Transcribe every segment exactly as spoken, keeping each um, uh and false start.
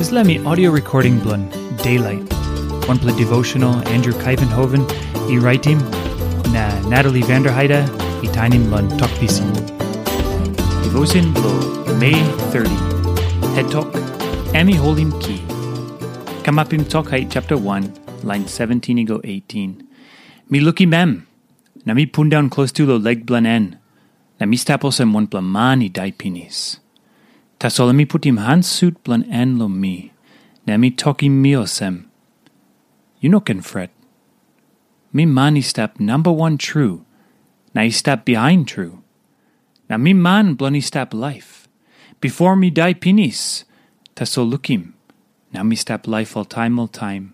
Dispela mi audio recording bilong Daylight, wanpela devotional Andrew Kaivenhoven i raitim, na Natalie Vanderheide i tainim long Tok Pisin. Devotion bilong Mei thirty. Het tok, em i holim ki. Kamapim Tok Hait chapter one, lain seventeen i go eighteen. Mi lukim em, na mi pundaun klostu long lek bilong en, na mi stap olsem wanpela man i dai pinis. Tasol em i putim han sut bilong en long mi, na em i tokim mi olsem, "Yu no ken fret. Mi man i stap namba wan tru, na i stap bihain tru. Na mi man bilong i stap laip. Bipo mi dai pinis, tasol lukim, na mi stap laip oltaim oltaim.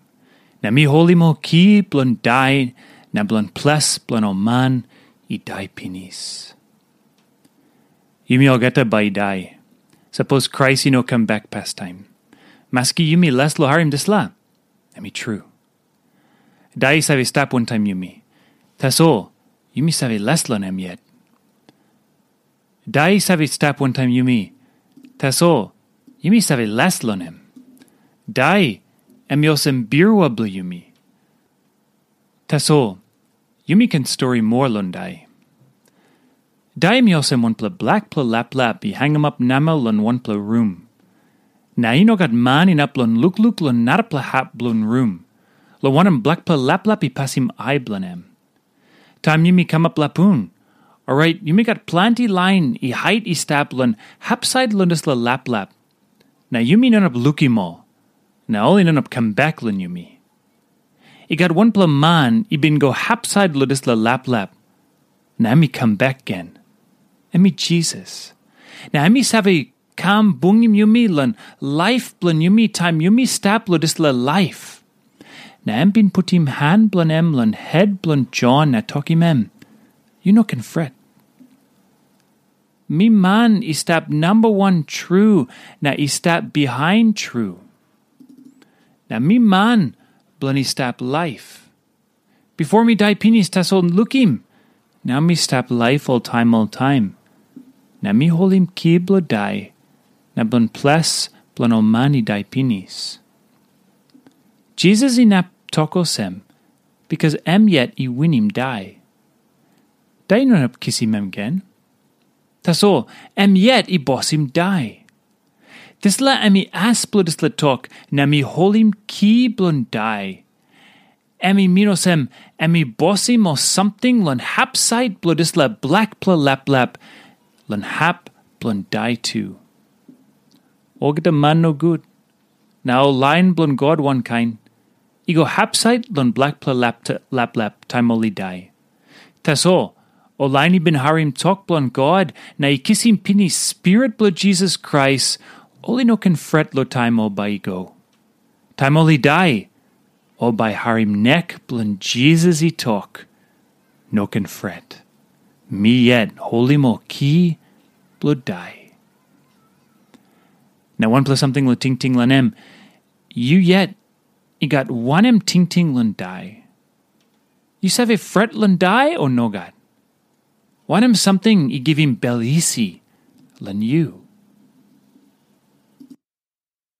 Na mi holim ol ki bilong dai na bilong ples bilong ol man i dai pinis." Yumi olgeta bai i dai, sapos Krais i no kam bek pastaim. Maski yumi les long harim dispela, em i tru. Dai i save stap wantaim yumi. Tasol, yumi save les long em yet. Dai i save stap wantaim yumi. Tasol, yumi save les long em. Dai, em i olsem birua bilong yumi. Tasol, yumi ken stori moa long dai. Dai em i olsem wanpela blakpela laplap i hangamap namel long wanpela rum. Na i no gat man inap long lukluk long narapela hap bilong rum, long wanem, blakpela laplap i pasim ai bilong em. Taim yumi kamap lapun, orait yumi gat planti lain i hait i stap long hapsait long dispela laplap, na yumi no inap lukim ol, na ol i no inap kam bek long yumi. I gat wanpela man i bin go hapsait long dispela laplap, na em i kam bek gen. Em i Jisas. Na em i save kam bungim yumi long laip bilong yumi taim yumi stap long dispela laip. Na em bin putim han bilong em long het bilong Jon na tokim em, "Yu no ken fret. Mi man i stap namba wan tru na i stap bihain tru. Na mi man bilong i stap laip. Bipo mi dai pinis, tasol lukim, nau mi stap laip oltaim oltaim. Na mi holim ki bilong dai, na bilong ples bilong ol man i dai pinis." Jisas inap tok olsem, bikas em yet i winim dai. Dai i no inap kisim em gen. Tasol em yet i bosim dai. Dispela em i as bilong dispela tok, na mi holim ki bilong dai. Em i min olsem, em i bosim ol samting long hapsait bilong dispela blakpela laplap, long hap bilong dai tu. Olgeta man nogut, na ol lain bilong God wankain, i go hapsait long blakpela lapta- laplap taim ol i dai. Tasol, ol lain i bin harim tok bilong God na i kisim pinis Spirit bilong Jisas Krais, ol i no ken fret long taim ol bai i go. Taim ol i dai, ol bai harim nek bilong Jisas i tok, "No ken fret. Mi yet holim ol ki bilong dai." Na wanpela samting long tingting long em, yu yet i gat wanem tingting long dai? Yu save fret long dai, o nogat? Wanem samting i givim bel isi long yu?